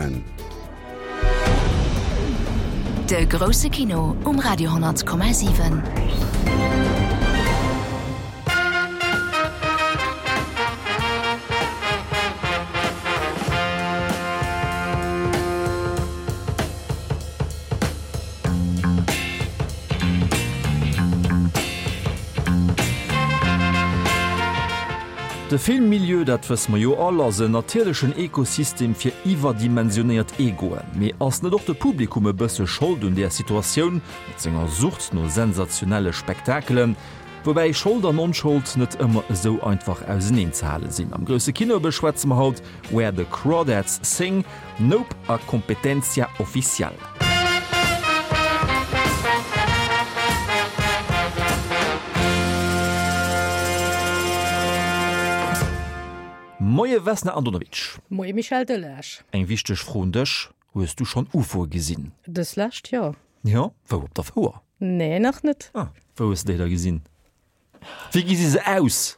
7. De grousse Kino um Radio 10,7. De Filmmilieu, dat wësse mer jo all, ass en natierlechen Ekosystem fir iwwerdimensionéiert Egoen. Mee ass net och de Publikum e bësse Schold un där Situatioun, mat senger Sucht no sensationelle Spektakelen? Woubäi Schold an Onschold net ëmmer esou einfach auseneen ze hale sinn. Am grousse Kino beschwätze mer haut Where the Crawdads Sing, Nope a Competencia Oficial. Moie Vesna Andonovic. Moie Michel Delage. Eng wichteg Fro un dech, Hues du schonn Ufoe gesinn? Dës lescht, jo. Jo? Wou, op der Fouer? Nee, nach net. Ah, wou hues de déi da gesinn? Wéi gesi se aus?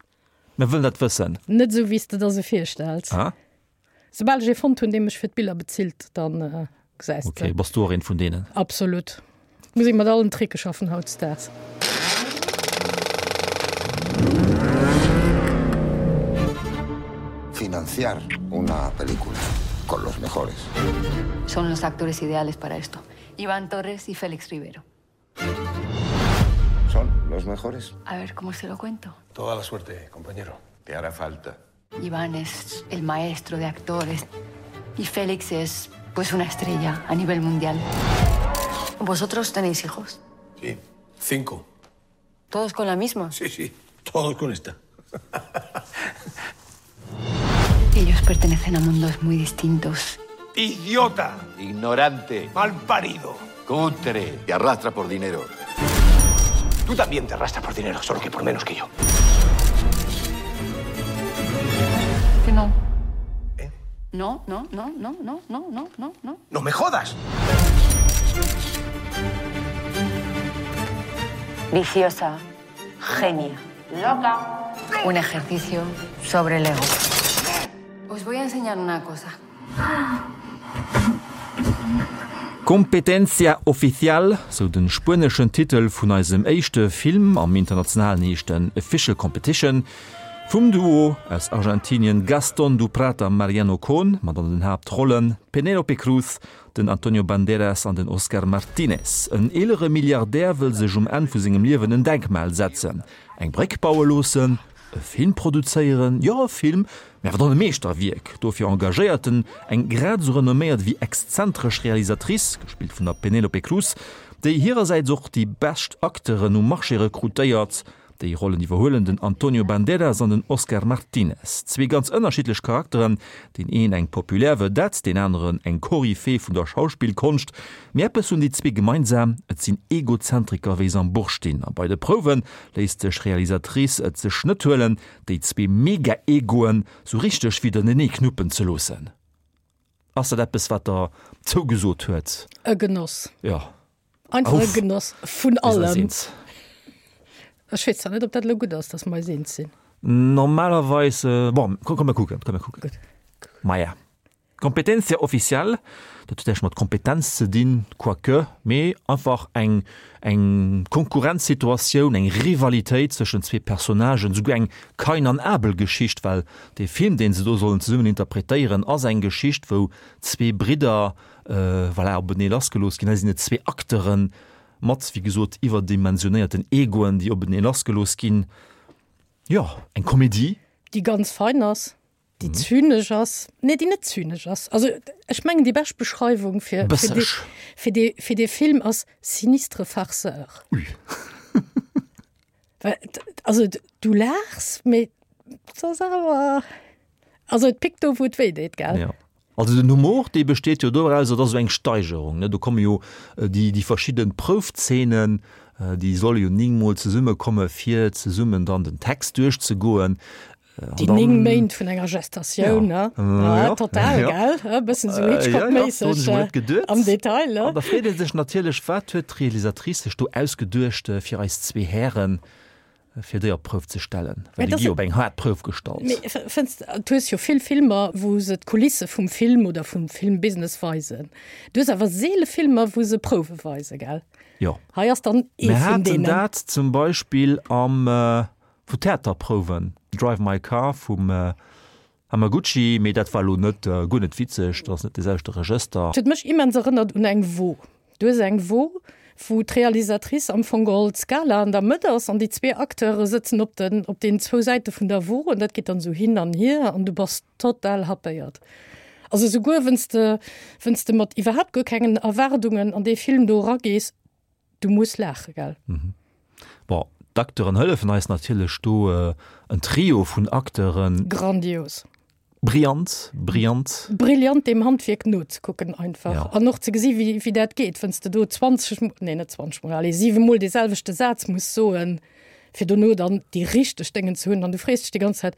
Mir wëllen dat wëssen. Net esou, wéi s de der se virstells. Ah. Soubal ech ee fonnt hunn, dee mech fir d'Biller bezilt, dann gesäis de. Ok, bass du och een vun deenen? Absolut. Muss ee mat allen Tricke schaffen hautdesdaags. Financiar una película con los mejores. Son los actores ideales para esto. Iván Torres y Félix Rivero. Son los mejores. A ver, ¿cómo se lo cuento? Toda la suerte, compañero. Te hará falta. Iván es el maestro de actores y Félix es pues una estrella a nivel mundial. ¿Vosotros tenéis hijos? Sí, cinco. ¿Todos con la misma? Sí, sí, todos con esta. Ellos pertenecen a mundos muy distintos. ¡Idiota! Ignorante. Mal parido. Cutre. Te arrastra por dinero. Tú también te arrastras por dinero, solo que por menos que yo. Que no. ¿Eh? No, no, no, no, no, no, no, no, no. ¡No me jodas! Viciosa, genia, loca. Un ejercicio sobre el ego. Os voy a enseñar una cosa. Competencia Oficial, sou de spueneschen Titel vun eisem éischte Film, am internationalen heescht en Official Competition, vum Duo aus Argentinien Gastón Duprat a Mariano Cohn, mat an den Haaptrollen Penélope Cruz, den Antonio Banderas an den Oscar Martínez. En eelere Milliardär wëll sech um Enn vu sengem Liewen en Denkmal setzen, eng Bréck baue loossen, E Film produzéieren? Jo, e Film, mä awer dann e Meeschterwierk. Dofir engagéiert en eng grad esou renomméiert ewéi exzentresch Realisatrice, gespillt vun der Penélope Cruz, déi hirersäits och déi bescht Acteuren um Marché rekrutéiert. Déi Rollen iwwerhuelen den Antonio Banderas an den Oscar Martinez. Zwee ganz ënnerschiddlech Charakteren, deen een eng populär Vedette, deen aneren eng Koryphee vun der Schauspillkonscht. Mee eppes hunn déi zwee gemeinsam, et sinn Egozentriker wéi se am Buch stinn. A bei de Prouwe léisst sech Realisatrice et sech net huelen, déi zwee Mega-Egoen sou richteg widernenee knuppen ze loossen. Ass dat eppes, wat der zougesot huet? E Genoss. Jo. Einfach e Genoss vun allem. Ech weess zwar net, ob dat elo gutt ass, dass mer eis eens sinn. Normalerweis, bon, komm mer kucken, komm mer kucken. Gutt. Maja. Competencia oficial, dat huet näischt mat Kompetenz ze dinn, quoique, mee einfach eng eng Konkurrenzsituatioun, eng Rivalitéit zwëschen zwee Personnagen, souguer eng Kain an Abel-Geschicht, well dee Film, dee se do sollen zesummen interpretéieren, ass eng Geschicht, wou zwee Bridder, voilà, openee lassgelooss ginn. Hei sinn et zwee Acteure mat, wéi gesot, iwwerdimensionéierten Egoen, déi openee lassgelooss ginn. Jo, eng Komedie. Déi ganz fein ass. Déi zynesch ass, nee, déi net zynesch ass. Also ech mengen déi bescht Beschreiwung fir, fir, dee, fir, dee, fir dee Film ass sinistre Farceur. Ui. Well, also du laachs, mee et ass awer, also et pickt do wou et wéi deet, gell? Ja. Also den Humor, dee besteet jo doraus, et ass esou eng Steigerung, ne? Do komme jo déi, déi verschidde Proufzeenen, déi solle jo néngmol zesummekomme fir zesummen dann den Text duerchzegoen. Déi 9 Méint vun enger Gestatioun, ne? Ja, total, gell? E bëssen esou Hitchcock-méisseg am Detail, ne? An da freet ee sech natierlech, wat huet d'Realisatrice sech do ausgeduecht fir eis zwee Hären? Fir déi op d'Prouf ze stellen, well déi gi op eng haart Prouf gestallt. Mee fënns de, du hues jo vill Filmer, wou se d'Kulisse vum Film oder vum Filmbusiness weisen. Du hues awer seele Filmer, wou se Prouwe weisen, gell? Jo. Hei ass dann ee Mir vun haten deenen. dat zum Beispill am, vu Theaterprouwen, Drive My Car vum Hamaguchi, mee dat war elo net, guer net witzeg, dat ass net dee selwechte Regëster. Et huet mech immens erënnert un eng Wo. Du hues eng Wo, wou d'Realisatrice am Fong geholl d'Skala an der Mëtt ass an déi zwee Acteure sëtzen op den, op deenen zwou Säite vun der Wo an dat geet dann esou hin an hier an du bass total happéiert. Also souguer wenn's de, wenn's de mat iwwerhaapt guer kengen Erwaardungen an dee Film do eragees, du muss laache, gell? Bon, d'Acteuren hëllefen eis natierlech do, en Trio vun Acteuren. Grandios. Brillant, brillant. Brillant deem Handwierk nozekucken einfach. Ja. An och ze gesi wéi, wéi dat geet, wann s de do 20, nee net 20 mol, allez 7 mol dee selwechte Saz muss soen, fir dono dann déi richteg Déngen ze hunn an du frees dech déi ganz Zäit,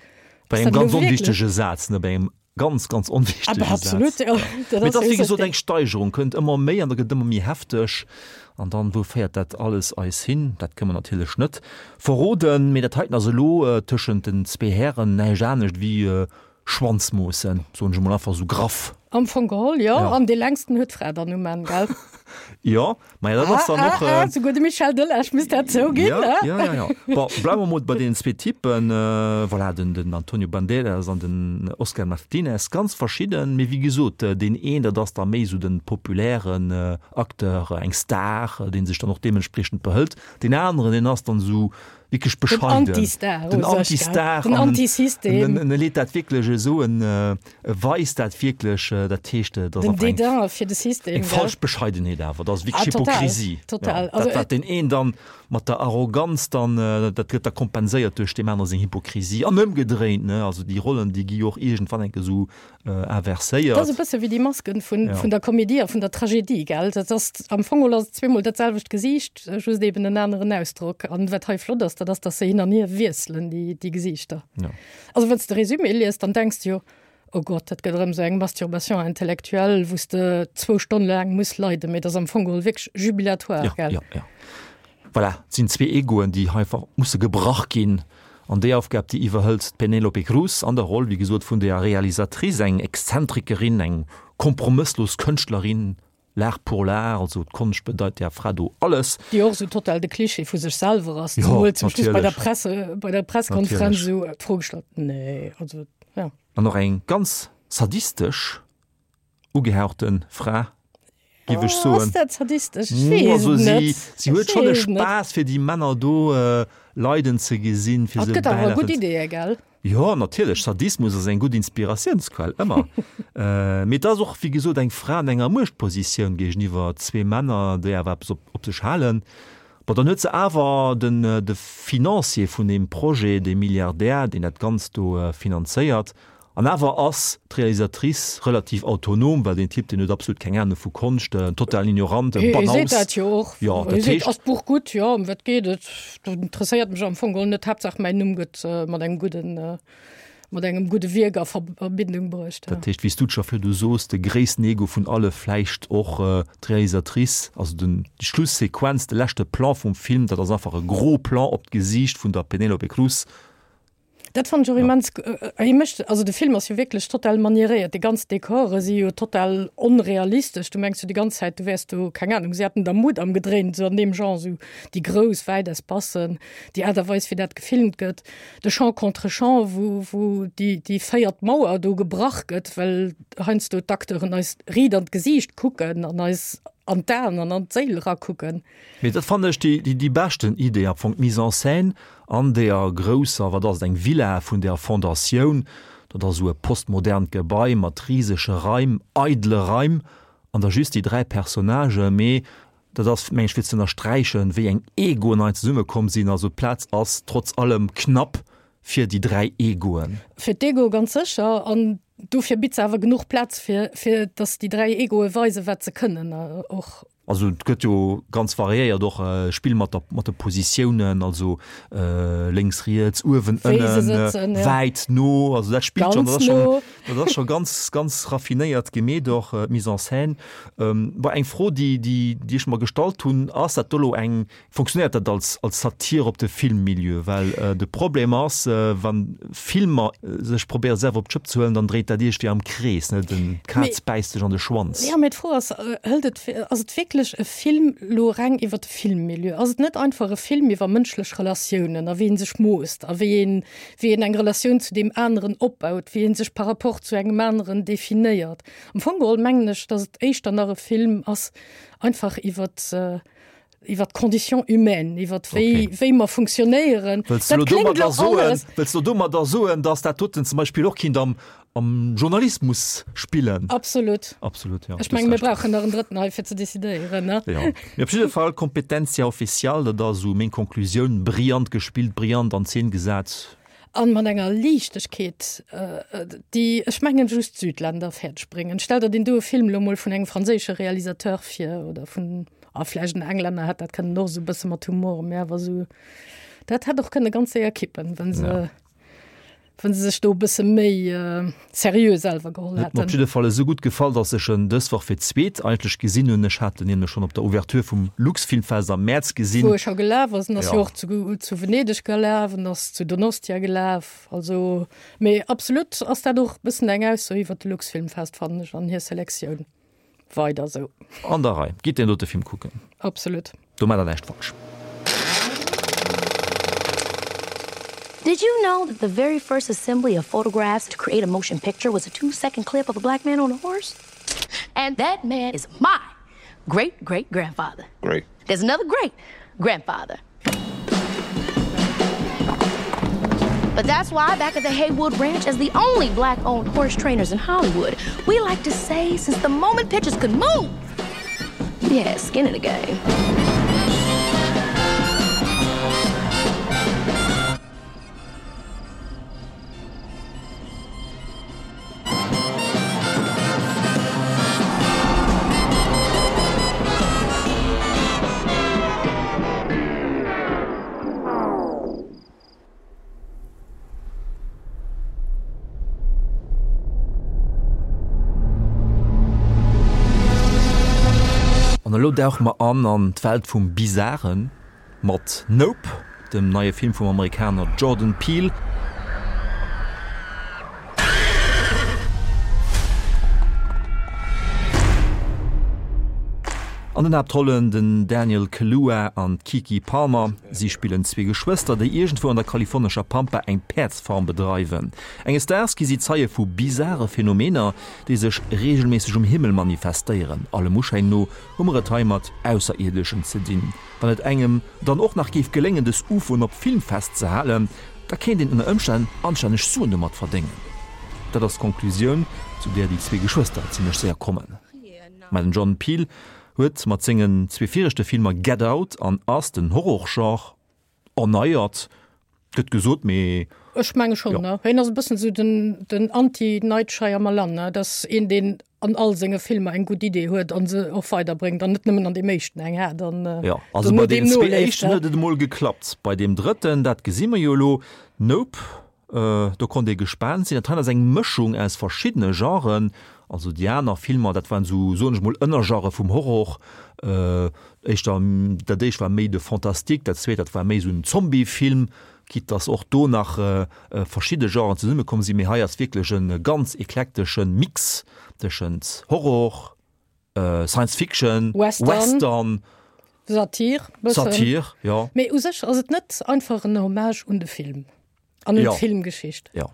Bei ass engem dat elo ganz wierklech? onwichtege Saz, ne, bei engem Ganz, ganz onwichtege Aber absolut, Saz. ja. Dat Mee et ass ass jo wéi esou gesot eng Steigerung, kënnt ëmmer méi an da gëtt et ëmmer méi hefteg. An dann, wou féiert dat alles eis hin? Dat kënne mer natierlech net verroden. Mee dat heiten ass elo tëschent den zwee Hären näischt anescht wéi Schwanzmoossen, soen ech emol einfach esou graff. Am Fong geholl, jo. Ja. An dee längsten huet d'Fra dann um Enn, gell? Jo, maja, dat ass Ah, dann ah, och. ah, souguer de Michel Delage misst dat zouginn, Ja, ne? ja, ja, ja. Bon, bleiwe mer mol bei deenen zwee Typen. Voilà, den, den Antonio Banderas an den Oscar Martinez, ganz verschidden, mee wéi gesot, deen een, dat ass da méi esou de populären Acteur, eng Star, dee sech dann och deementspriechend behëlt. Deen aneren, deen ass dann esou wierklech Den bescheiden. Anti-Star, Den u sech, gell? Anti-Star Den an Anti-System. en, en leet dat wierklech esou, en weist dat wierklech, dat heescht, dat ass Den einfach eng, Dédain fir de System, eng gell? falsch Bescheidenheet awer, dat ass wierklech Ah, total, Hypokrisie. total. Ja, Also, dat, wat deen een dann mat der Arroganz dann, dat gëtt da kompenséiert duerch deem anere seng Hypokrisie an ëmgedréint, ne? Also déi Rollen, déi gi jo och iergendwann enke esou inverséiert. Dat ass e bësse wéi déi Masken vun, Ja. vun der Komedie a vun der Tragedie, gell? Dat ass, am Fong geholl ass et zweemol dat selwecht Gesiicht, just eben en aneren Ausdrock. An wat hei flott ass, dat ass, dass se hin an hier wiesselen, déi, déi Gesiichter. Ja. Also wann s de Résumé liest, dann denks de jo, Oh Gott, dat gëtt erëm esou eng Masturbation intellectuelle, wou s de zwou Stonne laang muss leiden. Mee dat ass am Fong geholl wierklech jubilatoire, Ja, gell? ja, ja. Voilà, et sinn zwee Egoen, déi hei einfach musse gebrach ginn. An déi Aufgab, déi iwwerhëlt d'Penélope Cruz an der Roll, wéi gesot, vun der Realisatrice, eng Exzentrikerin, eng kompromësslos Kënschtlerin, l'art pour l'art, also d'Konscht bedeit där Fra do alles. Déi och esou total de Klischee vu sech selwer ass, Jo, zemol zum Schluss bei der natierlech. Presse, bei der Presskonferenz Natierlech. esou d'Fro gestallt, Nee, also, ja. An och eng ganz sadistesch ugehauchte Fra, giff ech soen. Ass dat sadistesch? Ech weess Also et si, net. si huet Ech schonn e weess et net. Spaass fir déi Männer do leiden ze gesinn, fir Et se gëtt awer bäilafen gutt ze. Ideeë, gell? Jo, natierlech, Sadismus ass eng gutt Inspiratiounsquell, ëmmer. Mee et ass och, wéi gesot, eng Fra an enger Muechtpositioun géigeniwwer zwee Männer, déi awer eppes op, op sech halen. Bon, dann huet se awer den, de Financier vun deem Projet, dee Milliardär, deen dat Ganzt do finanzéiert. An awer ass d'Realisatrice relativ autonom, well deen Typ, deen huet absolut keng Ahnung vu Konscht, en totalen Ignorant, en Hie seet Banaus. dat jo och. Jo, Hie dat seet, heescht. Ass d'Buch gutt? Jo, ëm wat geet et? Dat interesséiert mech am Fong geholl net. Haaptsaach mäin Numm gëtt mat engem gudden, mat engem gudde Wierk a Verbindung bruecht. Dat heescht, wéi s du et scho virdu soos, de gréissten Ego vun alle, vläicht och d'Realisatrice, also den, déi Schlussequenz, de leschte Plan vum Film, dat ass einfach e gros Plan op d'Gesiicht vun der Penélope Cruz, Dat fand ech och immens, hie mécht, also de Film ass jo wierklech total manieréiert, déi ganz Dekore si jo total onrealistesch, du mengs jo déi ganz Zäit, du wäers do, keng Ahnung, si hätten der Mudam gedréint, esou an deem Genre, esou déi grouss, wäit Espacen, déi Aart a Weis wéi dat gefilmt gëtt, de Champ contre Champ, wou, wou déi, déi véiert Mauer do gebrach gëtt, well heiansdo d'Acteuren eis riit an d'Gesiicht kucken an eis an d'Aen an an d'Séil erakucken. Mee dat fannen ech déi, déi beschten Idee am Fong, d'Mise en scène an deeër grousser, wat ass et, eng Villa vun der Fondatioun, dat ass esou e postmodernt Gebai mat risege Raim, eidele Raim, an da just déi 3 Personnagen, mee dat ass, meng ech, fir ze ënnersträichen, wéi eng Egoen hei zesummekomm sinn, also d'Plaz ass trotz allem knapp fir déi 3 Egoen. Fir d'Egoe ganz sécher, an dofir bitt se awer genuch Plaz, fir, fir datt déi 3 Egoe weisen, wat se kënnen och. Also et gëtt jo ganz variéiert och Spill mat der mat de Positiounen, also lénks, riets, uewen, ënnen, wäit, no, also dat spillt schonn, dat ass schonn, dat ass scho ganz, ganz raffinéiert gemeet och d'Mise en scène. Bon, eng Fro, déi, déi, déi ech mer gestallt hunn, ass dat do elo eng Funktionéiert dat als als Satir op de Filmmilieu? Well de Problem ass, wa Filmer sech probéiere selwer op d'Schëpp ze huelen, dann dréit dat iergendwéi am Krees, ne? Den d'Kaz bäisst sech an de Schwanz. Jo, mee d'Fro ass, hëlt et, ass et wierklech e Film elo reng iwwer de Filmmilieu? Ass et net einfach e Film iwwer mënschlech Relatiounen a wéi ee sech moosst a wéi een, wéi een eng Relatioun zu deem aneren opbaut, wéi ee sech par rapport zu engem aneren definéiert? Am Fong geholl mengen ech, datt et éischter nach e Film ass einfach iwwer, iwwer d'Condition humaine, iwwer wéi, okay. wéi mer funktionéieren. Wëlls du domadder soen, wëlls du domadder soen, dass dat doten zum Beispill och kinnt am, am Journalismus spillen? Absolut. Absolut, ja. Ech menge mir brauchen nach en Drëtten hei fir ze decidéieren, ne? Ja. Mee op jidde Fall, Competencia oficial, dat ass esou meng Konklusioun, brillant gespillt, brillant an Zeen gesat. An mat enger Liichtegkeet, déi, ech mengen, just d'Südländer fäerdeg bréngen. Stell der deen doe Film elo mol vun engem franséische Realisateur vir oder vun, ah, vläicht en Englänner hätt dat kënnen och esou e bësse mat Humor, mä awer esou, dat hätt och kënne ganz séier kippen, wa se, wa se sech do e bësse méi seriö selwer geholl hätten. Huet mer op jidde Fall esou gutt gefall, dass ech en dës Woch fir d'zweet eigentlech gesinn hunn. Ech hat en nämlech schonn op der Ouverture vum Luxfilmfest am Mäerz gesinn. Wou e scho gelaf ass. En ass jo och zu, zu Venedeg gelaf, en ass zu Donostia gelaf. Also, mee absolut ass dat och e bëssen eng Ausso iwwer de Luxfilmfest, fannen ech, an hir Selektioun. Weider esou. An der Rei. Gitt deen dote Film kucken. Absolut. Do maacht der näischt falsch. Did you know that the very first assembly of photographs to create a motion picture was a two-second clip of a black man on a horse? And that man is my great great grandfather. Great. There's another great grandfather. But that's why back at the Haywood Ranch, as the only black-owned horse trainers in Hollywood, we like to say since the moment pitchers could move, we had skin in the game. An elo dauche mer an an d'Welt vum Bizaren. Mat Nope, dem neie Film vum Amerikaner Jordan Peele. An den Haaptrollen den Daniel Kaluuya an d'Keke Palmer. Si spillen zwee Geschwëster, déi iergendwou an der kalifornescher Pampa eng Päerdsfarm bedreiwen. Enges Daags gi si Zeie vu bizare Phänomener, déi sech reegelméisseg um Himmel manifestéieren. Allem Uschäin no hu mer et hei mat Ausserierdeschen ze dinn. Wann et engem dann och nach géif geléngen dës Ufoen op Film festzehalen, da kéint een ënner Ëmstänn anstänneg Suen domat verdéngen. Dat ass d'Konklusioun, zu där déi zwee Geschwëster zimmlech séier kommen. Mä den Jordan Peele huet mat sengen zwee viregte Filmer Get Out an Us den Horrorgenre erneiert, gëtt gesot, mee. Ech menge schonn, ne? Hien ass e bëssen esou den, den Anti-Night Shyamalan, ne? Dat ass een, deen an all senge Filmer eng gutt Idee huet an se och weiderbréngt an net nëmmen an deem éischten eng hat an Jo, also bei deenen zwee éischten huet et emol geklappt. Bei deem drëtten, dat gesi mer jo elo, Nope, Do konnt ee gespaant sinn. Dat hei ass eng Mëschung aus verschiddene Genren. Also déi aner Filmer, dat waren esou, soen ech mol, Ënnergenre vum Horror. Éischter, dat éischt war méi de Fantastique, dat zweet, dat war méi esou en Zombiefilm, quitte dass och do nach verschidde Genren zesummekomm sinn. Mee hei ass wierklech e ganz eklektesche Mix tëschent Horror, Science Fiction, Western, Western Satir, bëssen. Satir, jo. Mee u sech ass et net einfach en Hommage un de Film an un Jo. d'Filmgeschicht. Jo.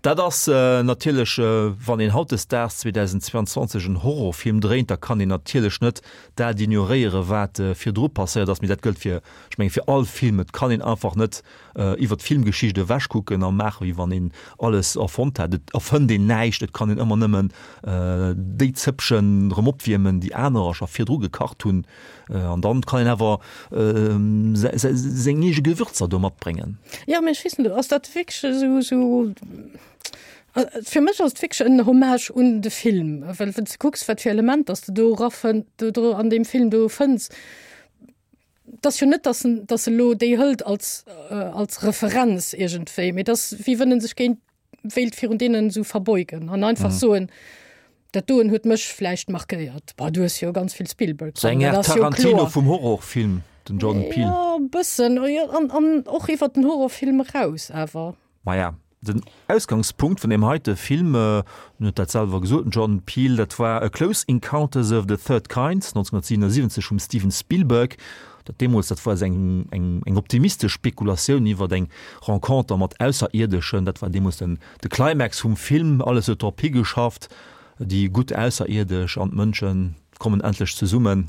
Dat ass natierlech, wann een hautdesdaags 2022 en Horrorfilm dréint, da kann een natierlech net dat ignoréieren, wat virdru passéiert ass. Mee dat gëllt fir, ech mengen, fir all Film. Et kann een einfach net iwwer d'Filmgeschicht ewech kucken a maachen, wéi wann een alles erfonnt hätt. Et erfënnt een näischt, et kann een ëmmer nëmmen déi Zëppchen erëm opwiermen, déi anerer scho virdru gekacht hunn. An dann kann een awer seng eege Gewürzer do matbréngen. Jo, mee ech weess net, ass dat wierklech esou, esou. Fir mech ass et wierklech en Hommage un de Film, well wann s de kucks, wat fir Elementer s de do erafënn, do do an deem Film do fënns, et ass jo net, dass en, dass e lo déi hëlt als, als Referenz iergendwéi, mee et ass wéi wënn en sech géint, wéilt virun deenen esou verbeugen an einfach soen, dat doen huet mech vläicht markéiert. Bah, du hues jo ganz vill Spielberg Sou dran, eng dat Aart ass jo Tarantino kloer. vum Horrorfilm, den Jordan Peele. Jo, e bëssen, jo, an, an och iwwert den Horrorfilm eraus awer. Maja, den Ausgangspunkt vun deem heite Film, en huet dat selwer gesot, den Jordan Peele, dat war A Close Encounters of the Third Kind, 1977 vum Steven Spielberg. Dat deemools, dat war eng, eng, eng optimistesch Spekulatioun iwwer eng Renconter mat Ausserierdeschen. Dat war deemools den, de Climax vum Film. Alles huet drop higeschafft, déi gutt Ausserierdesch an d'Mënsche kommen endlech zesummen.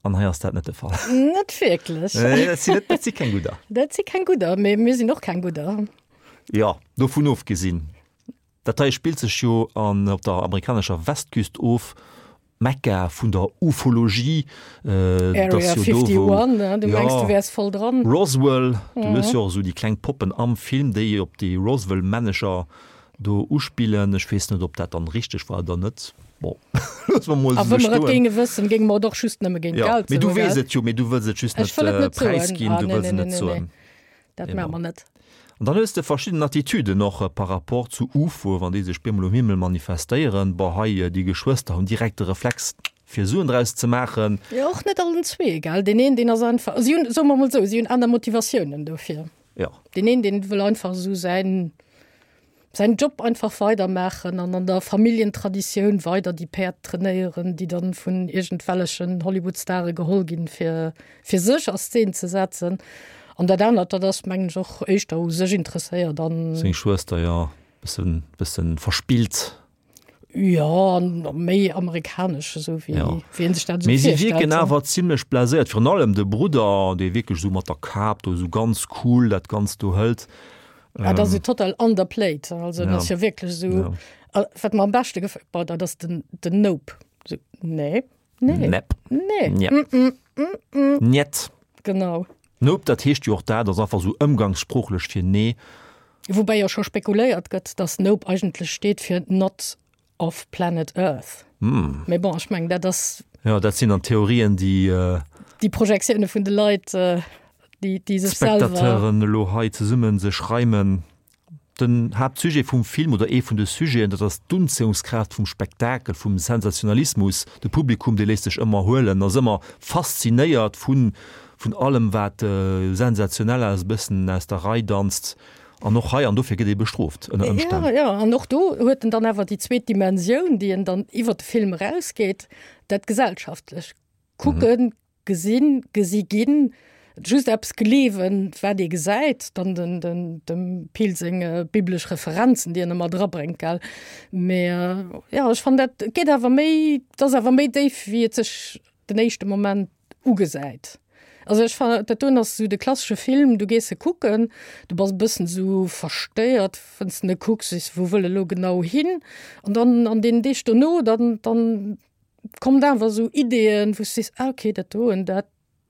An hei ass dat net de Fall. Net wierklech. Nee, dat sinn net, dat si keng Gudder. Dat si keng Gudder, mee mir sinn och keng Gudder. Jo, dovun ofgesinn, dat hei spillt sech jo an op der amerikanescher Westküst of, Mekka vun der Ufologie. Area 51, du mengs du wäers voll dran. Roswell, du hues jo och esou déi kleng Poppen am Film, déi op déi Roswell-Männecher Do uspillen. Ech weess net, ob dat dann richteg war oder net. Bon, loosse mer mol A esou wa mer et stoen. géinge wëssen, géinge mer et och just nëmme géint Jo, Geld mee du soen, weess gell? et jo, mee du wëlls et just Ech net wëll et net soen. präisginn, Ah, du nee, wëlls nee, et nee, net nee, soen. nee. Dat maache Genau. mer net. An dann hues de verschidden Attitüden och par rapport zu UFOe, wann déi sech bemol um Himmel manifestéieren. Bon, hei déi Geschwëster hunn direkt de Reflex, fir Suen draus ze maachen. Jo, och net allen zwee, gell? Deen een, deen ass einfach, si hunn, soe mer mol esou, si hunn aner Motivatiounen dofir. Jo. Deen een, deen wëll einfach esou säin, säin Job einfach weidermaachen an an der Familljentraditioun weider déi Päerd trainéieren, déi dann vun iergendwellechen Hollywood-Stare geholl ginn, fir fir sech a Szen ze setzen. An dat anert, dat ass, mengen ech, och éischter u sech interesséiert an. Seng Schwëster, jo, bëssen, bëssen verspillt. Jo, an méi amerikanesch, esou wéi, Ja. wéi een sech dat esou Mee si virstellt. wierken awer zimlech blaséiert, virun allem de Brudder, dee wierklech esou mat der Kap do esou ganz cool dat Ganzt do hëlt. Ja, dat ass jo total underplayed. Also, dat ass jo wierklech esou. Ja. A wat mer am beschte gefält, boah, dat ass den, den Nope. Esou, nee, nee, Nepp. nee, Njepp. mm, mm, mm, mm. Njet. Genau. Nope, dat heescht jo och dat, ass einfach esou ëmgangssproochlech fir nee. Woubäi jo scho spekuléiert gëtt, dass Nope eigentlech steet fir Not of Planet Earth. Mee bon, ech mengen, dat ass. Jo, dat sinn dann Theorien, déi. Déi Projektioune vun de Leit, déi, déi sech selwer. D'Spectateuren elo hei zesumme sech reimen. Den Haaptsujet vum Film, oder ee vun de Sujeten, dat ass d'Unzéiungskraaft vum Spektakel, vum Sensationalismus. De Publikum, dee léisst sech ëmmer huelen, ass ëmmer faszinéiert vun, vun allem wat sensationell ass, e bëssen aus der Rei danzt. An och hei, an dofir gëtt ee bestrooft ënner Ëmstänn. Jo, jo, an och do huet en dann awer déi zweet Dimensioun, déi en dann iwwer de Film erausgeet, dat Gesellschaftlech. Kucken, Gesinn, gesi ginn, just eppes gleewen, wat ee gesäit, dann den, den, dem Peele seng biblesch Referenzen, déi en ëmmer drabréngt, gell. Mee jo, ech fannen dat geet awer méi, et ass awer méi déif, wéi et sech den éischte Moment ugesäit. Also ech fannen, dat doen ass esou de klassesche Film, du gees e kucken, du bass e bëssen esou verstéiert, wann s de en kucks, sees, wou wëll e lo genau hin? An dann an deenen Deeg dono, dann, dann kommt awer esou Ideeën, wou s du sees, ah okay, dat doen, dat,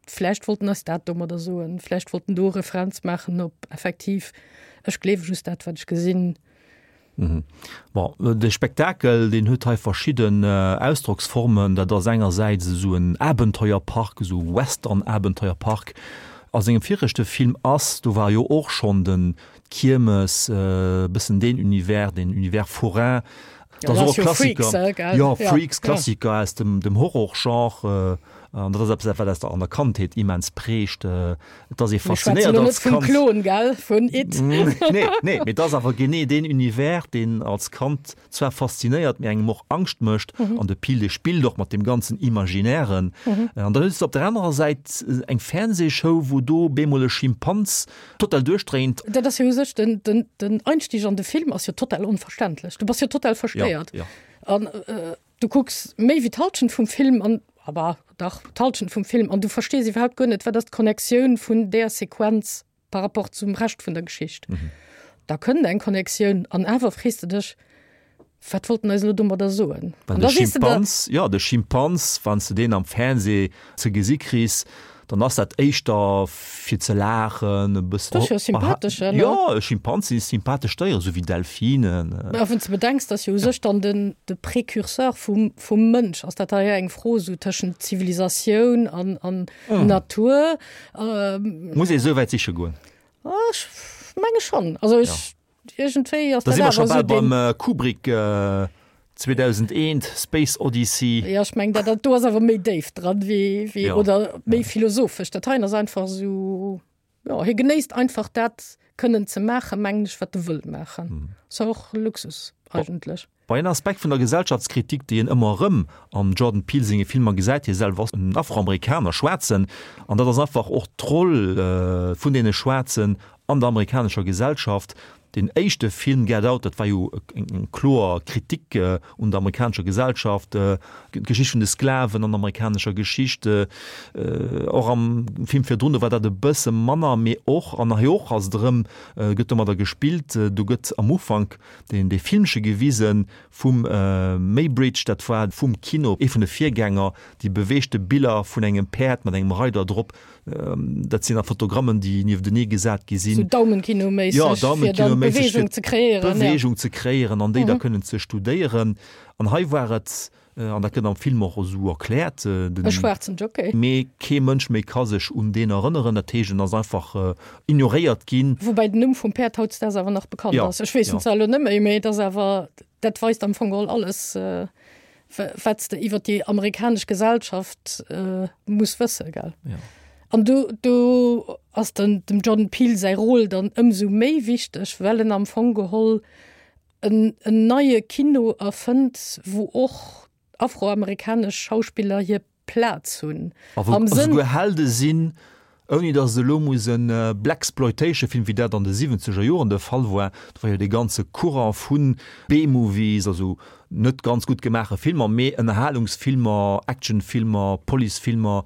vläicht wollt en eis dat domadder soen, vläicht wollt en do e Referenz maachen op effektiv, ech gleewe just dat, wat ech gesinn. Bon, de Spektakel, deen huet hei verschidden Ausdrocksformen. Dat ass engersäits esou en Abenteuerpark, esou Western-Abenteuerpark. A sengem viregte Film Us, do war jo och schonn den, d'Kiermes, e bëssen deen Univers, deen Univers forain. Dat ass och e Klassiker. Jo, Freaks, Klassiker aus dem, dem Horror-Genre. An dat ass eppes, wat aus der, an der Kandheet immens prägt. Et ass ee faszinéiert als Kand. Vum Klon, gell, vun It. Nee, nee, mee et ass awer genee deen Univers, deen als Kand zwar faszinéiert, mee engem och Angscht mécht. An de Peele spillt och mat deem ganzen Imaginären. An dann hues de op der anerer Säit eng Fernsehshow, wou do bemol e Schimpans total duerchdréint. Dat ass jo u sech den, den, den Einstieg an de Film ass jo total onverständlech. Du bass jo total verstéiert. Ja, ja. An äh, du kucks méi wéi d'Halschent vum Film an, aber dach, d'Halschent vum Film an du verstees iwwerhaupt guer net, wat ass d'Connectioun vun där Sequenz par rapport zum Rescht vun der Geschicht. Mhm. Da kënnt eng Connectioun an awer frees de dech, wat wollt en eis elo domadder soen? An de Schimpans, jo, de Schimpans, wann s de deen am Fernseh ze gesi kriss. Dann ass dat éischter fir ze laachen, e bëssen. Dat ass jo sympathesch, ne? Jo, Schimpansen si sympathesch Déieren, esou wéi Delfinen. Mä wann s de bedenks, dass jo u sech dann den, de Précurseur vum, vum Mënsch ass, dat hei eng Fro esou tëschent Zivilisatioun an, an Natur. Muss ee esou wäit siche goen? Ech menge schonn. Also ech. Iergendwéi ass Da dat si mer scho awer bal esou deen. beim Kubrick 2001, Space Odyssey. Jo, ech mengen, dat dat do ass awer méi déif dran wéi, wéi, Ja. oder méi philosophesch. Dat heien ass einfach esou, jo, hie genéisst einfach dat kënnen ze maachen, mengen ech, wat e wëll maachen. Ass jo och Luxus eigentlech. Bei en Aspekt vun der Gesellschaftskritik, déi een ëmmer erëm am Jordan Peele senge Filmer gesäit, hie selwer ass en Afroamerikaner, Schwaarzen, an dat ass einfach och d'Roll vun deene Schwaarzen an der amerikanescher Gesellschaft. Deen éischte Film Get Out, dat war jo eng kloer Kritik un der amerikanescher Gesellschaft, d'Geschicht vun de Sklaven an der amerikanescher Geschicht. Och am Film virdrun, do war dat e bësse manner, mee och, an hei och ass et erëm, gëtt domadder gespillt, do gëtt am Ufank deen dee Filmche gewise vum Muybridge, dat war vum Kino ee vun de Virgänger, déi beweegte Biller vun engem Päerd mat engem Reider drop, dat sinn da Fotogrammen, déi nieftenee gesat gi sinn. Sou Daumenkino-méisseg, Jo, fir dann Daumenkino-méisseg, d'Beweegung fir ze kreéieren, ja. d'Beweegung ze kreéieren an déi da kënnen ze studéieren. An hei war et An dat gëtt am Film och esou erkläert. E schwaarzen Jockey. Mee kee Mënsch méi ka sech un deen erënneren. Dat heescht, en ass einfach ignoréiert ginn. Woubäi den Numm vum Päerd hautdesdaags awer nach bekannt ass. Ech weess en zwar elo net méi, mee et ass awer, dat weist am Fong geholl alles, wat s de iwwer déi amerikanesch Gesellschaft muss wëssen, gell? An do, do ass dann dem Jordan Peele säi Rôle dann ëmsou méi wichteg, well en am Fong geholl en neie Kino erfënnt, wou och afroamerikanesch Schauspiller hir Plaz hunn. A wou esouguer Helde sinn, ouni datt et elo muss e Blaxploitation-Film, wéi dat an de siwwenzeger Joren de Fall war, do war jo dee ganze Courant vu B-Movies, also net ganz gutt gemaache Filmer, mee Ënnerhalungsfilmer, Actionfilmer, Policefilmer,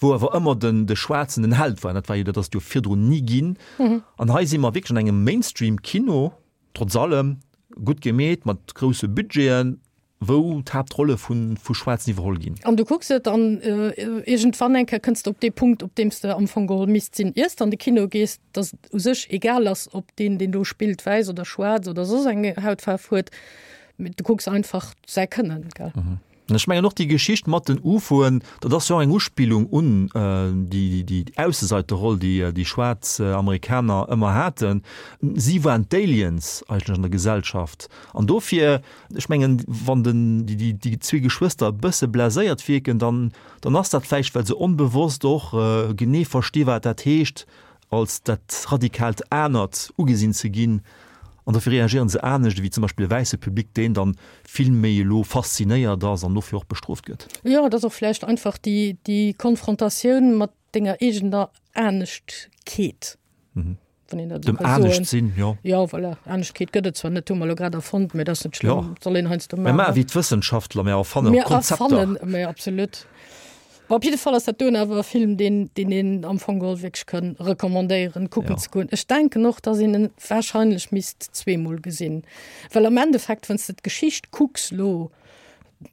wou awer ëmmer den de Schwaarzen den Held war. Dat war jo, dat ass et jo virdrun ni ginn. An hei si mer wierklech an engem Mainstream-Kino, Trotz allem gutt gemeet, mat grousse Budgeten, wou d'Haaptrolle vu Schwaarzen iwwerholl ginn. An du kucks et an iergendwann eng Kéier kënns de op dee Punkt, op deem s de am Fong geholl misst sinn, iers de an de Kino gees, dass et u sech egal ass, ob deen, deen do spillt, wäiss oder schwaarz oder soss eng Hautfaarf huet, mee du kucks einfach säi Kënnen, gell. An ech mengen och déi Geschicht mat den UFOen, dat ass jo och eng Uspillung un déi Ausseseiterroll, déi déi schwaarz Amerikaner ëmmer haten. Si waren d'Aliens eigentlech an der Gesellschaft. An dofir, ech mengen, wann den, déi, déi zwee Geschwëster e bësse blaséiert wierken, dann, dann ass dat vläicht, well se onbewosst och genee versti wat dat heescht, als dat radikaalt Anert ugesinn ze ginn, an dofir reagéieren se anescht ewéi zum Beispill e wäisse Public, deen dann vill méi elo faszinéiert ass an dofir och bestrooft gëtt. Jo, et ass och vläicht einfach déi, déi Konfrontatioun mat denger eegener Aneschtkeet, wann een dat esou Dem ka soen. Anescht-Sinn, jo. Jo, voilà, Aneschtkeet gëtt et zwar net, hu mer elo grad erfonnt, mee dat ass net schlëmm, Jo. soll een heiansdo Mir maache maachen. wéi d'Wëssenschaftler, mir erfannen Mir Konzepter. erfannen, mee absolut. Bon, op jidde Fall ass dat doen awer e Film, deen, deen een am Fong geholl wierklech kann recommandéieren, kucken Ja. ze goen. Ech denken och, dass een en wahrscheinlech misst zweemol gesinn, well am Endeffekt, wann s de d'Geschicht kucks lo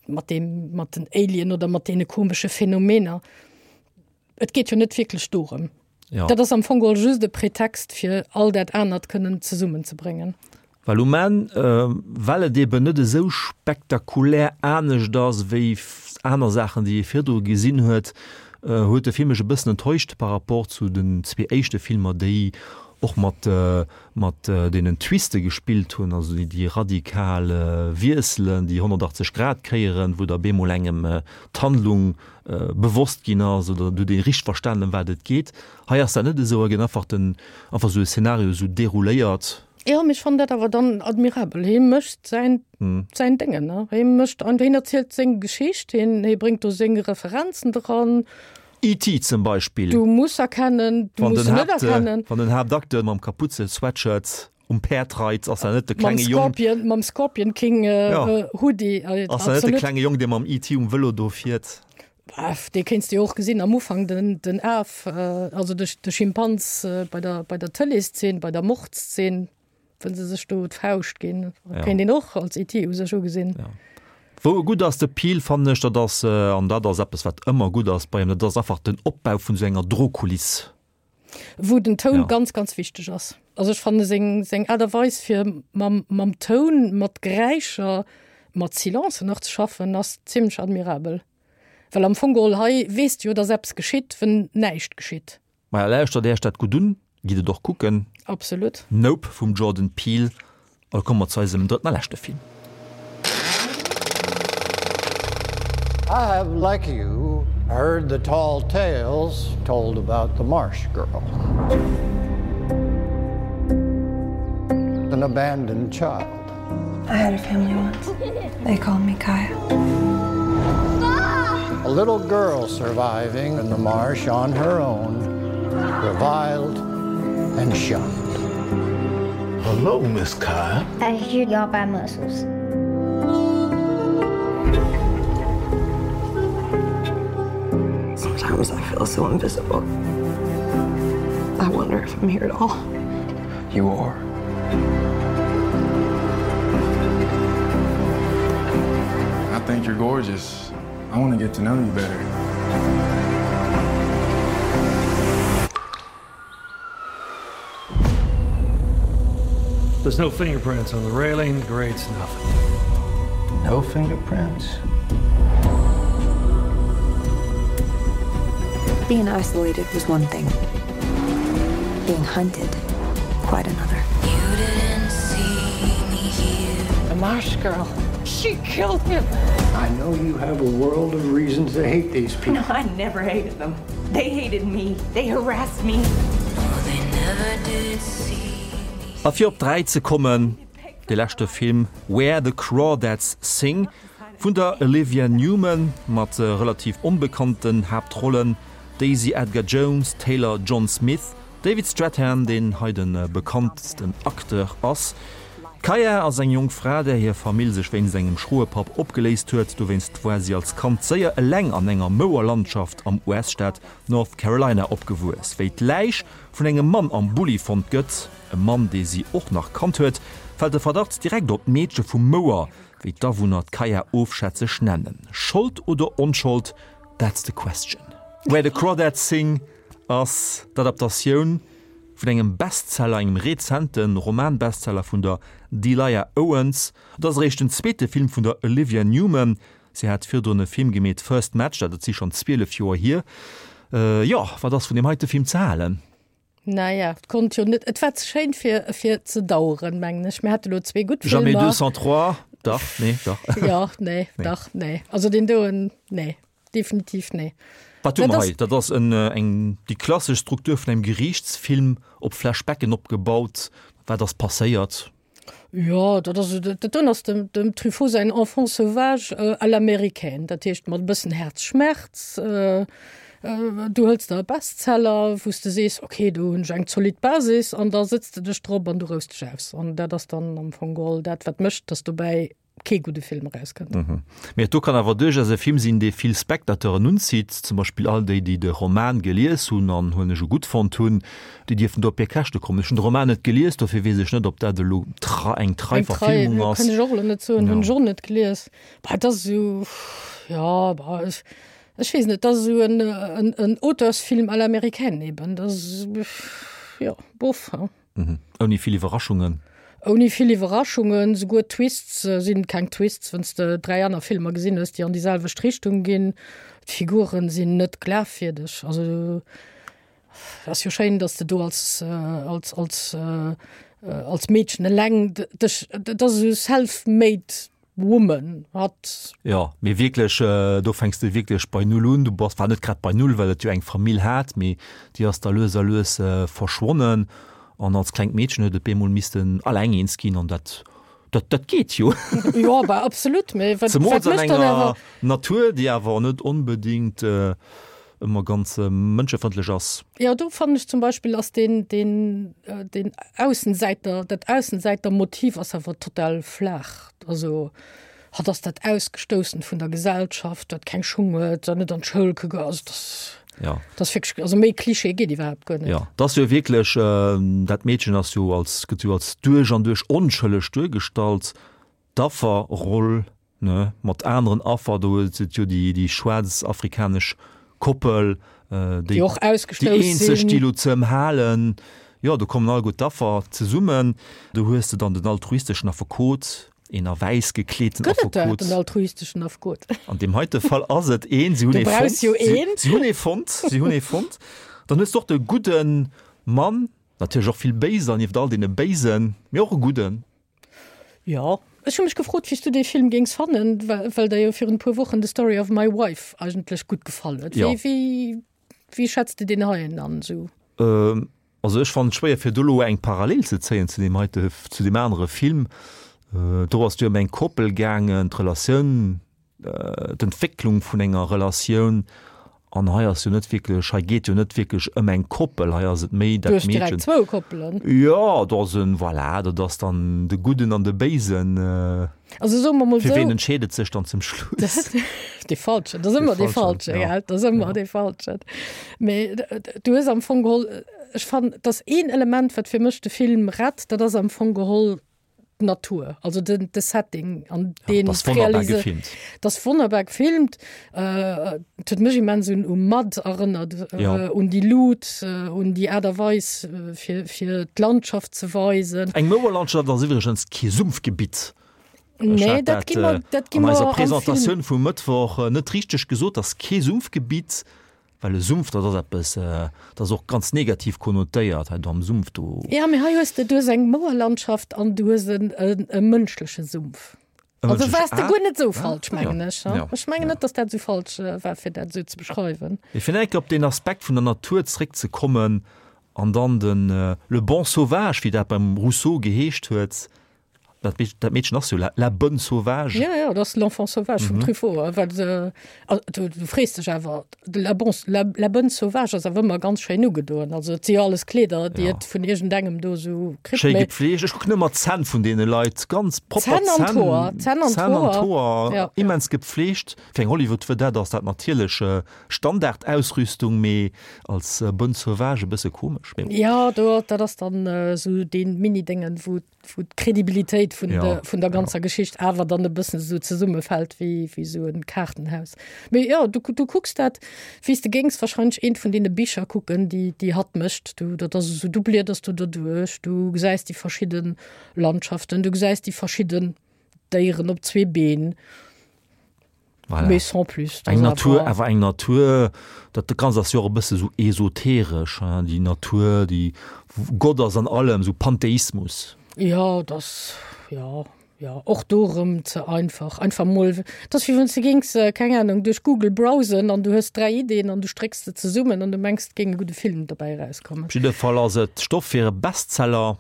mat deem, mat den Alien oder mat deene komesche Phänomener, et geet jo net wierklech dorëm. Ja. Dat ass am Fong geholl just e Pretext, fir all dat anert kënnen zesummenzebréngen. Well um Enn, well et eben net esou spektakulär anescht ass wéi aner Saachen, déi ee virdru gesinn huet, huet de Film mech e bëssen enttäuscht par rapport zu den zwee éischte Filmer, déi och mat mat deenen Twiste gespillt hunn, also déi radikal Wiesselen, déi 180 Grad Kéieren, wou da bemol engem d'Handlung bewosst ginn ass oder du huet ee richteg verstanen, ëm wat et geet. Hei ass dat net esou, hei gëtt einfach den einfach esou e Szenario esou derouléiert. Jo, mee ech fannen dat awer dann admirabel. Hie mécht säin, säin Déngen, ne? Hie mécht einfach, hien erzielt seng Geschicht, hien, hie bréngt do seng Referenzen dran. E.T. zum Beispill. Du muss erkennen, du Wann muss den se net Haapt, erkennen. wann den Haaptacteur mam Kapuze-Sweatshirt um Päerd reit, ass dat net de Mam klenge Jong. Scorpion, mam Scorpion King Ja. Hoodie, Ass dat net de absolut. klenge Jong, dee mam E.T. um Vëlo do fiert? Dee kéints de jo och gesinn am Ufank, den, den Af, also de, de Schimpans bei der, bei der Tëleeszeen, bei der Mordszeen, wou se sech do d'Fauscht ginn. Ja. Kéint een och als ET u sech ugesinn. Ja. Wou e gutt ass, de Peele, fannen ech, dat ass, an dat ass eppes, wat ëmmer gutt ass bei him, dat ass einfach den Opbau vun esou enger Drohkuliss. Wou den Toun ja. ganz, ganz wichteg ass. Also ech fanne seng, seng Aart a Weis fir mam, mam Toun, mat Geräischer, mat Silencen nach ze schaffen, ass zimmlech admirabel. Well am Fong geholl hei weess de jo, dass eppes geschitt, wenn näischt geschitt. Maja, lauschtert Äech dat gutt un, gitt et och kucken. Absolut. Nope vum Jordan Peele. A komme mer zu eisem drëtten a leschte Film. I have, like you, heard the tall tales told about the marsh girl. An abandoned child. I had a family once. They called me Kaya. A little girl surviving in the marsh on her own, reviled and shunned. Hello, Miss Kaya. I hear y'all buy mussels. Sometimes I feel so invisible. I wonder if I'm here at all. You are. I think you're gorgeous. I want to get to know you better. There's no fingerprints on the railing, the grates, nothing. No fingerprints? Being isolated was one thing. Being hunted, quite another. You didn't see me here. The marsh girl. She killed him. I know you have a world of reasons to hate these people. No, I never hated them. They hated me. They harassed me. Oh, they never did see me. A fir op 3 ze kommen, de leschte Film Where the Crawdads Sing vun der Olivia Newman mat relativ onbekannten Haaptrollen, Daisy Edgar-Jones, Taylor John Smith, David Strathairn, deen hei de bekanntsten Acteur ass. D'Kaya ass eng jonk Fra, där hir Famill sech wéinst engem schroe Papp opgeléist huet. Dowéinst war si als Kand séier eleng an enger Mouerlandschaft am US-Staat North Carolina opgewuess. Wéi d'Läich vun engem Mann am Bulli fonnt gëtt, e Mann, dee si och nach kannt huet, fält de Verdacht direkt op d'Meedche vum Mouer, wéi d'Awunner d'Kaya ofschätzeg nennen. Schold oder Onschold, that's the question. Where the Crawdads Sing ass d'Adaptatioun vun engem Bestseller, engem rezente Roman-Bestseller vun der Delia Owens. Et ass eréischt den zweete Film vun der Olivia Newman. Si hat virdrun e Film gemeet, First Match, dat si schonn 12 Joer hier. Jo, wat ass vun deem heite Film ze halen? Naja, et konnt jo net, et war ze schéin fir, fir ze daueren, mengen ech. Mir hate lo zwee gutt Jamais Filmer. 203, dach, nee, dach. Jo, nee, dach, nee. Also deen doen, nee. Definitiv nee. Wat hu mer hei? Dat ass en, eng, déi klassesch Struktur vun engem Geriichtsfilm, op Flashbacken opgebaut. Wat ass passéiert? Jo, dat ass, dat doen ass dem, dem Truffaut säin Enfant sauvage à l'américaine. Dat heescht mat e bëssen Herzschmerz. Du hëls der e Bestseller, wou s de sees, okay, do hunn ech eng zolidd Basis, an da sëtz de dech drop an du rous dech aus. An dat ass dann am Fong geholl dat, wat mécht, datt dobäi kee gudde Film erauskënnt. Mee et do kann awer duerchaus e Film sinn, dee vill Spectateuren unzitt, zum Beispill all déi, déi de Roman gelies hunn an huelen ech u gutt fonnt hunn, déi dierfen do op hir Käschte kommen. Ech hunn de Roman net gelies, dofir weess ech net, ob dat elo eng trei Verfilmung ass. Eng trei, kann ech och elo net soen, hunn ech och net gelies. Bah, et ass esou, jo, bah, ech weess net, et ass esou en Auteursfilm à l'américaine eben, dat ass, jo, bof, hein. Mhm. Ouni vill Iwwerraschungen. Ouni vill Iwwerraschungen, souguer d'Twists sinn keng Twists, wann s de 3 aner Filmer gesinn hues, déi an déi selwecht Richtung ginn. D'Figuren sinn net glafwierdeg. Also ass jo schéin, datt s de do als als als als Meedchen eleng dech, dat ass esou self-made Woman hat. Jo, mee wierklech, do fänks de wierklech bei Null un. Du bass, war net grad bei Null, well et jo eng Famill hat, mee déi ass da lues a lues verschwonnen an als klengt Meedchen huet et bemol missten alleng eens ginn an dat, dat, dat geet jo. Jo, bah absolut, mee wat, Zemools wat an mécht dann enger awer. Natur, déi awer net onbedéngt ëmmer ganz mënschefrëndlech ass. Jo, do fannen ech zum Beispill ass deen, deen, deen Aussensäiter, dat Aussensäitermotiv ass awer total flaach. Also hatt ass dat Ausgestoussent vun der Gesellschaft, dat keng Schung huet, dat net an d'Schoul ka goen. Also dat, Ja. dat ass wierklech, also méi Klischee geet iwwerhaapt guer net. Ja, dat ass jo wierklech, dat Meedchen ass jo als, gëtt jo als duerch an duerch onschëlleg duergestallt, d'Afferroll. Ne, mat aneren Affer, do huet et jo déi, déi schwaarz afrikanesch Koppel, déi, déi och ausgestouss déi eenzeg, sinn. déi elo z'ëmhalen. Jo, do kommen alleguer d'Affer zesummen. Do hues de dann den altruisteschen Affekot, een a wäiss gekleeten Gëtt et dat, Affekot. en altruisteschen Affekot? An deem heite Fall ass et een. Si hunn Du ee brauchs fonnt. jo Si, een. si hunn ee fonnt. Si hunn ee fonnt. Dann hues de och de gudde Mann, natierlech och vill Béiser nieft all deene Béisen, mee och e gudden. Jo, ech hu mech gefrot, wéi s du dee Film géings fannen, well der jo virun e puer Wochen The Story of My Wife eigentlech gutt gefall huet. Jo. Wéi, wéi, wéi schätz de deen heien an esou? Also ech fannen et schwéier fir do elo eng Parallel ze zéien zu deem heite, zu deem anere Film. Do ass et jo ëm eng Koppel gaangen, d'Relatioun d'Entwécklung vun enger Relatioun an hei ass jo net wierklech, hei geet jo net wierklech ëm eng Koppel, hei ass et méi Du dat hues direkt Meedchen. zwou Koppelen. Jo, do ass en, voilà, dat ass dann de Gudden an de Béisen. Also soe mer mol Fir ween esou. entscheet et sech dann zum Schluss? Dee Falschen, dat ass ëmmer dee Falsche, ja. gell, dat ass ëmmer dee Falschen. Mee du hues am Fong geholl, ech fannen, et ass een Element, wat fir mech de Film rett, dat ass am Fong geholl d'Natur, also den, de Setting an den ja, das wunderbar gefilmt. Das wunderbar gefilmt äh, huet mech immens un um Mud erënnert äh, ja. un die Lut äh, un die Art a Weis äh, fir, fir d'Landschaft ze weisen. Eng Mouerlandschaft ass iwwregens kee Sumpfgebitt. Nee, dat gi mer, dat gi mer an eiser Presentatioun vum Mëttwoch äh, net richteg gesot, ass kee Sumpfgebitt. Well e Sumpf, dat ass eppes, dat ass och ganz negativ konnotéiert, hei do am Sumpf do. Jo, mee hei hues de, du hues eng Mouerlandschaft an du hues en e mënschleche Sumpf. E Also mënschleche, waars de ah, guer net esou ah, falsch, ja, mengen ech. ja, Ech mengen ja. net, datt dat esou falsch war, fir dat esou ze beschreiwen. Mee fir nach eng Kéier op deen Aspekt vun der Natur zréckzekommen an dann den le bon sauvage, wéi dat beim Rousseau geheescht huet, Dat, dat Meedchen ass jo la, la bonne sauvage. Ja, ja, dat ass l'enfant sauvage vum mhm. Truffaut. Well, äh, du, du frees dech awer, la, bon, la, la bonne sauvage ass awer ëmmer ganz schéin ugedoen. Also et si jo alles Kleeder, déi ja. et vun iergendengem do sou kritt. Schéi gepflegt. Ech kucken ëmmer d'Zänn vun deene Leit, ganz propper Zänn an d'Hoer. Zänn an d'Hoer. Ja. Immens gepflegt. Fir eng Hollywood-Vedette ass dat natierlech äh, Standardausrüstung, mee als äh, bonne sauvage e bësse komesch. Mee Ja, do, dat ass dann äh, sou dee Mini-Déngen, wou wou d'Kredibilitéit vun, ja, de, vun der ganzer ja. Geschicht awer dann e bëssen so zesummefält wéi, wéi so en Kaartenhaus. Mee ja, du, du kucks dat, wéi s de géings wahrscheinlech eent vun deene Bicher kucken, déi, déi hatt mécht. Du, dat ass esou, du blieders du derduerch, du gesäis déi verschidden Landschaften, du gesäis déi verschidden Déieren op zwee Been. Voilà. Mais sans plus. Eng Natur, awer eng Natur, dat Ganzt ass jo och e bësse sou esoteresch, hein, déi Natur, déi Gott ass an allem, sou Pantheismus. Jo, dat ass, jo, jo, och do erëm ze einfach. Einfach mol, dat ass wéi wann s de géings, keng Ahnung, duerch Google browsen an du hues 3 Ideen an du strécks se zesummen an du mengs, et géing e gudde Film dobäi erauskommen. Op jidde Fall ass et Stoff fir e Bestseller.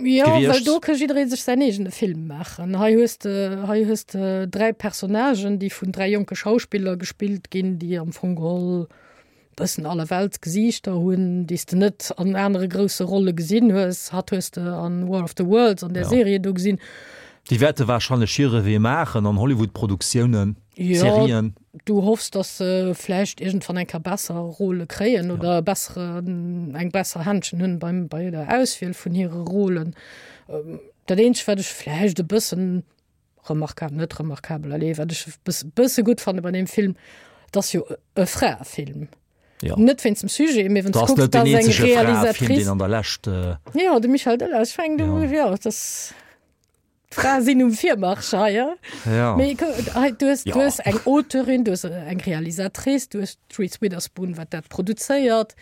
Ja, well gewiescht. do ka jidderee sech säin eegene Film maachen. Hei hues de, hei hues de 3 Personnagen, déi vun 3 jonke Schauspiller gespillt ginn, déi am Fong geholl bëssen Allerweltsgesiichter hunn, déi s de net an anere grousse Rolle gesinn hues. Hatt hues de an War of the Worlds, an där Ja. Serie do gesinn. Déi wäerte warscheinlech hire Wee maachen an Hollywood-Produktiounen, Ja, Serien. du hoffs, dass se vläicht iergendwann eng Kéier besser Rôle kréien ja. oder bessere, eng besser Händchen hunn beim, bei der Auswiel vun hire Rôlen. Ähm, dat eenzegt, wat ech vläicht e bëssen remarkabel, net remarkabel, allez, wat ech e bësse gutt fanne bei deem Film, dat ass jo e Fraefilm. Ja. Net wéinst dem Sujet, mee wann Das du kucks, net den dat ass eng eenzege Fraefilm, Realisatrice. deen an der Lescht. Äh, Ja, de Michel Delage fänkt Ja. ja. ja, das D'Frae sinn um Virmarsch hei. Ja. Mee hei, du hues, Ja. du hues eng Auteurin, du hues eng Realisatrice, du hues d'Reese Witherspoon, wat dat produzéiert.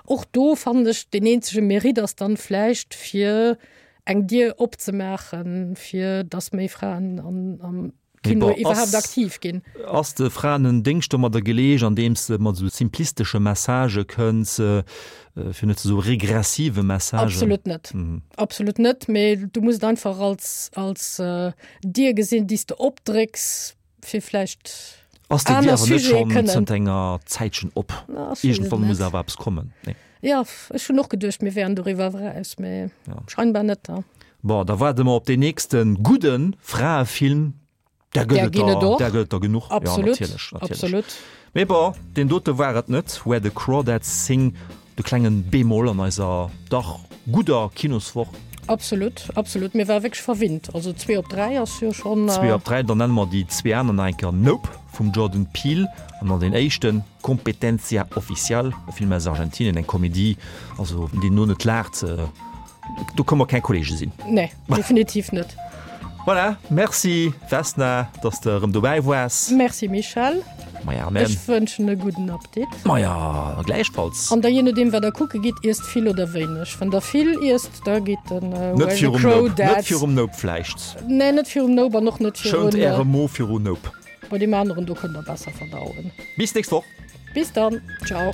Och do fannen ech, deen eenzege Mérite ass dann vläicht fir eng Dier opzemaachen, fir datt méi Fraen an, am Mee Kino bon, iwwerhaapt ass, aktiv ginn. ass de Fraen en Déngscht domadder geleescht, andeems de mat esou simplistesche Messagë kënns, fir net ze soe regressive Messagen? Absolut net. Absolut net, mee du muss et einfach als, als Dier gesinn, déi s de opdrécks, fir vläicht Ass déi Dier aner awer net Sujete schonn kënnen. zënter enger Zäitchen op? Na, ech weess et Iergendwann muss net. awer eppes kommen, nee? Jo, ech hunn och geduecht, mir wären doriwwer eraus, mee Ja. scheinbar net. Ja. Bon, da waarde mer op deen nächste gudde Fraefilm. Där gëtt Där et ginn et der, och. där gëtt et der genuch. Ja, Absolut, natierlech, natierlech. absolut. Mee bon, deen dote war et net. Where the Crawdads Sing, de klengen Bémol an eiser dach gudder Kinoswoch. Absolut, absolut. Mir ware wierklech verwinnt. Also zwee op dräi ass jo schonn. Zwee op dräi, dann nenne mer déi zwee aner nach eng Kéier Nope vum Jordan Peele an dann deen éischten Competencia Oficial, e Film aus Argentinien, eng Komedie, also deen no net laacht, do kënne mer keng Kollege sinn. Nee, definitiv net. Voilà, merci Vesna, dass de erëm dobäi woars. Merci Michèle. Maja, amen. Ech wënschen e gudden Appetit. Maja, gläichfalls. An da jee nodeem wat der kucke gitt, iesst vill oder wéineg. Wann der vill iesst, da geet den Net virum Nope, net virum Nope vläicht. Nee, net virum Nope an och net virun. Schount äre Mo viru Nope. Bei deem aneren do kënnt der besser verdauen. Bis nächst Woch. Bis dann, ciao.